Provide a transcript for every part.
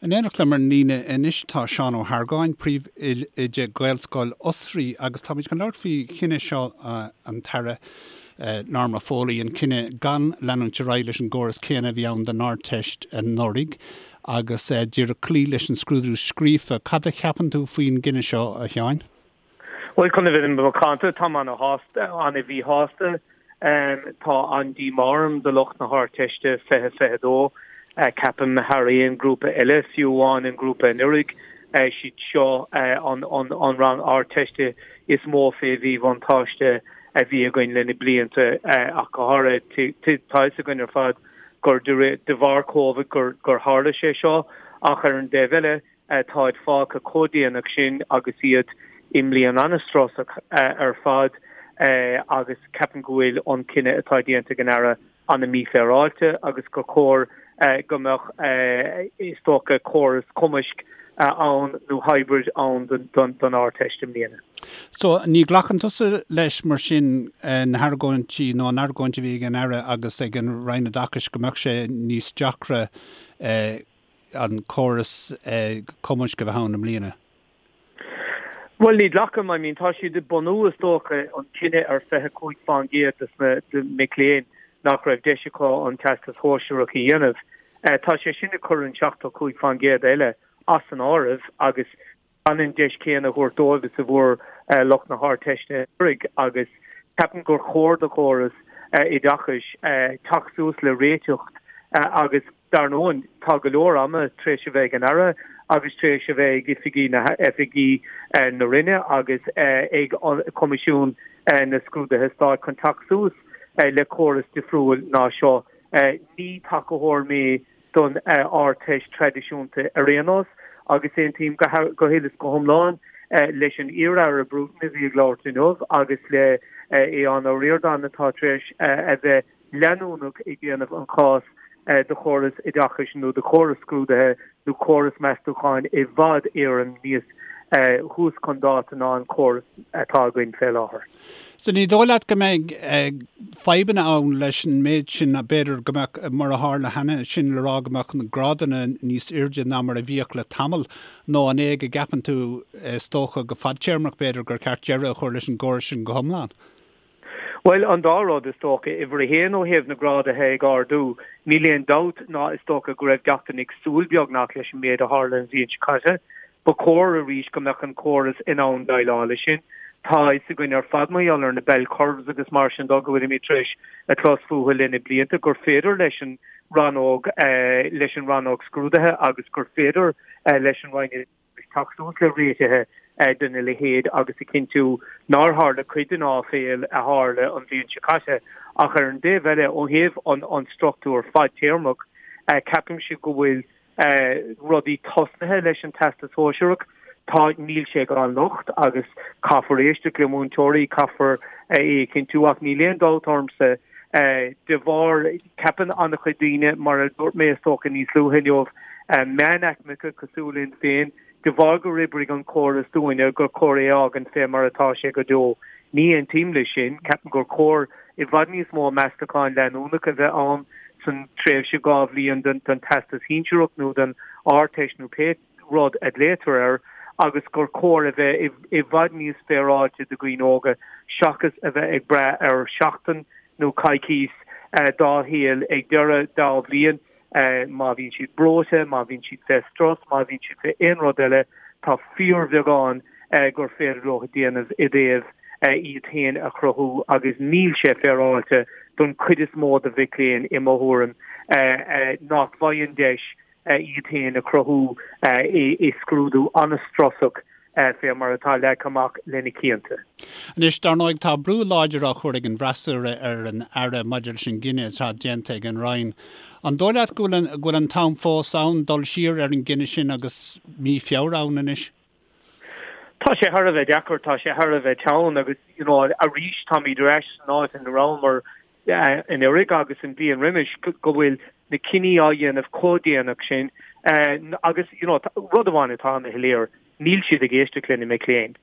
In éineacht liom ar an líne anois tá Seán Ó hArgáin, Príomhoide Gaelscoil Osraí agus táimid chun labhairt faoi chinneadh seo an tAire Norma Foley, an cinneadh gan leanúint ar aghaidh leis an gcóras céanna a bhí ann don Ardteist anuraidh agus díreach cloí leis an scrúdú scríofa. Cad a cheapann tú faoin gcinneadh seo, a Sheáin? Bhuel, chun a bheith macánta, táim ana-shásta, ana-mhíshásta. Tá an-díomá orm do lucht na hArdteiste 2022. Ceapaim thar aon ghrúpa eile, fiú amháin an grúpa anuraidh, siad seo an rang Ardteiste is mó fé mhíbhuntáiste a bhí againn le na blianta ach go háirithe. Tá fhios againn ar fad gur de bharr Covid gur tharla sé seo ach ar an dtaobh eile, Táid fágtha chomh déanach sin agus iad i mbliain an-strusach ar fad agus ceapaim go bhfuil an cinneadh atá déanta ag an Aire an-mhífhéaráilte agus gur chóir go mbeadh, is dócha, córas cumaisc ann nó hybrid ann don Ardteist i mbliana. So, ní ghlacann tusa leis mar sin na hargóintí nó an argóint a bhí ag an Aire agus ag an Roinn Oideachais go mbeadh sé níos deacra an córas cumaisc a bheith ann i mbliana? Bhuel, ní ghlacaim. I mean, tá siad ag bunú, is dócha, an cinneadh ar 25% de na mic léinn nach raibh deis acu an Teastas Shóisearach a dhéanamh. Tá sé sin ag cur an 75% eile as an áireamh agus gan an deis chéanna a thabhairt dóibh is a bhfuair lucht na hArdteiste anuraidh agus ceapaim gur chóir do chóras oideachais teacht suas le réiteach agus dar ndóigh tá go leor ama tar éis a bheith ag an Aire agus tar éis a bheith ag oifigí na oifigí na Roinne agus ag Coimisiún na Scrúduithe Stáit chun teacht suas le córas difriúil ná seo. Ní tacaitheoir mé don Ardteist traidisiúnta ar aon nós agus aontaím go huile is go hiomlán leis an iar-Aire Bruton a bhí ag labhairt inniu agus le Aodhán Ó Ríordáin atá tar éis a bheith leanúnach ag déanamh an chás do chóras oideachais nó do chóras scrúdaithe nó córas meastúcháin i bhfad Éireann níos thuas chun dáta ná an córas atá againn fé láthair. So ní dóigh leat go mbeidh fadhbanna ann leis an méid sin, b'fhéidir go mbeadh, mar a tharla cheana, sin le rá go mbeadh na grádanna níos airde ná mar a bhíodh le tamall, nó an é go gceapann tú, is dócha go fadtéarmach b'fhéidir, gur ceart deireadh a chur leis an gcóras sin go hiomlán? Bhuel, an dá rud, is dócha. Uimhir a haon, ó thaobh na grádaithe ag ardú, níl aon dabht ná is dócha go raibh gach duine ag súil beagnach leis an méid a tharla an bhliain seo caite. Ba chóir arís go mbeadh an córas in ann déileáil leis sin. Tá a fhios againn ar fad mar gheall ar na bell curves agus mar sin dó go bhfuilimid tar éis a clos fúthu le na blianta gur féidir leis an rannóg leis an rannóg scrúdaithe agus gur féidir leis an Roinn teacht suas le réitithe de na leithéid agus a chinntiú nár tharla cuid den áiféil a tharla an bhliain seo caite. Ach ar an dtaobh eile, ó thaobh an struchtúr fadtéarmach, ceapaimse go bhfuil rudaí tosnaithe leis an Teastas Sóisearach. Tá, níl sé gan locht agus caithfear éisteacht le múinteoirí, caithfear é a chinntiú ach níl aon dabht ormsa de bharr, ceapann an-chuid daoine, mar a dúirt mé is dócha níos luaithe inniu, meánaicmeacha cosúil linn féin, de bharr gur oibrigh an córas dúinne gur chóir é a fhágaint fé mar atá sé go deo. Ní aontaím leis sin. Ceapaim gur chóir i bhfad níos mó meastachán leanúnach a bheith ann san tréimhse 2 bhliain den Teastas Shinsearach nó den Ardteist nó pé rud a ghlaotar air agus gur chóir a bheith i bhfad níos féaráilte do dhaoine óga seachas a bheith ag brath ar sheachtain nó coicís dá shaol ag deireadh dá bhliain. Má bhíonn siad breoite, má bhíonn siad fé strus, má bhíonn siad fé aon rud eile, tá fíorbheagán gur féidir leo a dhéanamh i dtaobh iad féin a chruthú agus níl sé féaráilte don chuid is mó de mhic léinn, i mo thuairim, nach bhfaigheann deis iad féin a chruthú i scrúdú an-strusach fé mar atá leagtha amach le na cianta. Anois, dar ndóigh, tá brú láidir á chur ag an bhfreasúra ar an Aire maidir leis an gcinneadh atá déanta ag an Roinn. An dóigh leat go bhfuil go bhfuil an t-am fós ann dul siar ar an gcinneadh sin agus mí Feabhra ann anois? Tá sé thar a bheith deacair, tá sé thar a bheith teann agus, you know, arís táimid ar ais san áit ina rabhamar anuraidh agus an bhliain roimis go bhfuil na cinní á dhéanamh chomh déanach sin agus you know rud amháin atá ana shoiléir, níl siad ag éisteacht le na mic léinn.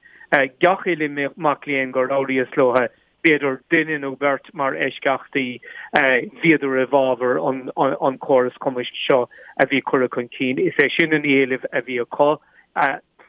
Gach uile mac léinn gur labhraíos leo. B'fhéidir duine nó beirt mar eisceachtaí, bhíodar i bhfabhar an córas cumaisc seo a bhí curtha chun cinn. Is é sin an éileamh a bhí acu.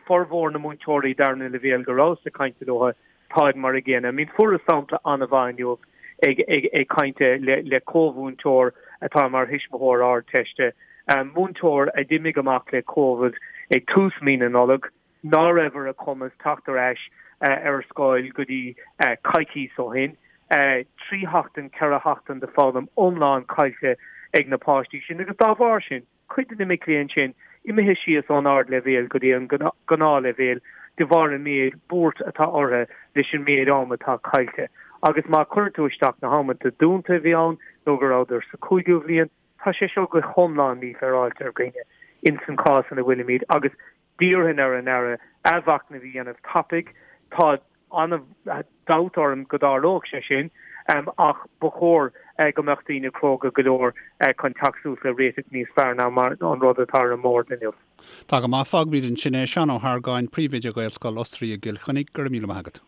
Formhór na múinteoirí darna leibhéal go rabhas ag caint leo, táid mar a gcéanna. I mean fuaireas sampla an-mhaith inniu ag caint le comh-mhúinteoir atá mar thuismitheoir Ardteiste, múinteoir a d'imigh amach le Covid ag tús mí na Nollag, ná raibh ar a cumas teacht ar ais ar scoil go dtí coicíos ó shin. 3 sheachtain, 4 sheachtain de foghlaim iomlán caillte ag na páistí sin agus dá bharr sin, cuid de na mic léinn sin imithe síos ón ardleibhéal go dtí an gnáthleibhéal de bharr an méid buairt atá orthu leis an méid am atá caillte. Agus má chuireann tú isteach na hamanta dúnta a bhí ann nó go rabhadar sa chúigiú bhliain, tá sé seo go hiomlán mífhéaráilte ar dhaoine ins an chás ina bhfuilimid agus D'iarrfainn ar an Aire athmhachnamh a dhéanamh tapaidh. Tá an-dabht orm go dtarlódh sé sin, ach ba chóir go mbeadh daoine cróga go leor chun teacht suas le réiteach níos fearr ná mar an rud atá ar an mbord inniu. Tá go maith. Fágfaimid ansin é. Seán Ó hArgáin, Príomhoide Ghaelscoil Osraí i gCill Chainnigh, go raibh míle maith agat.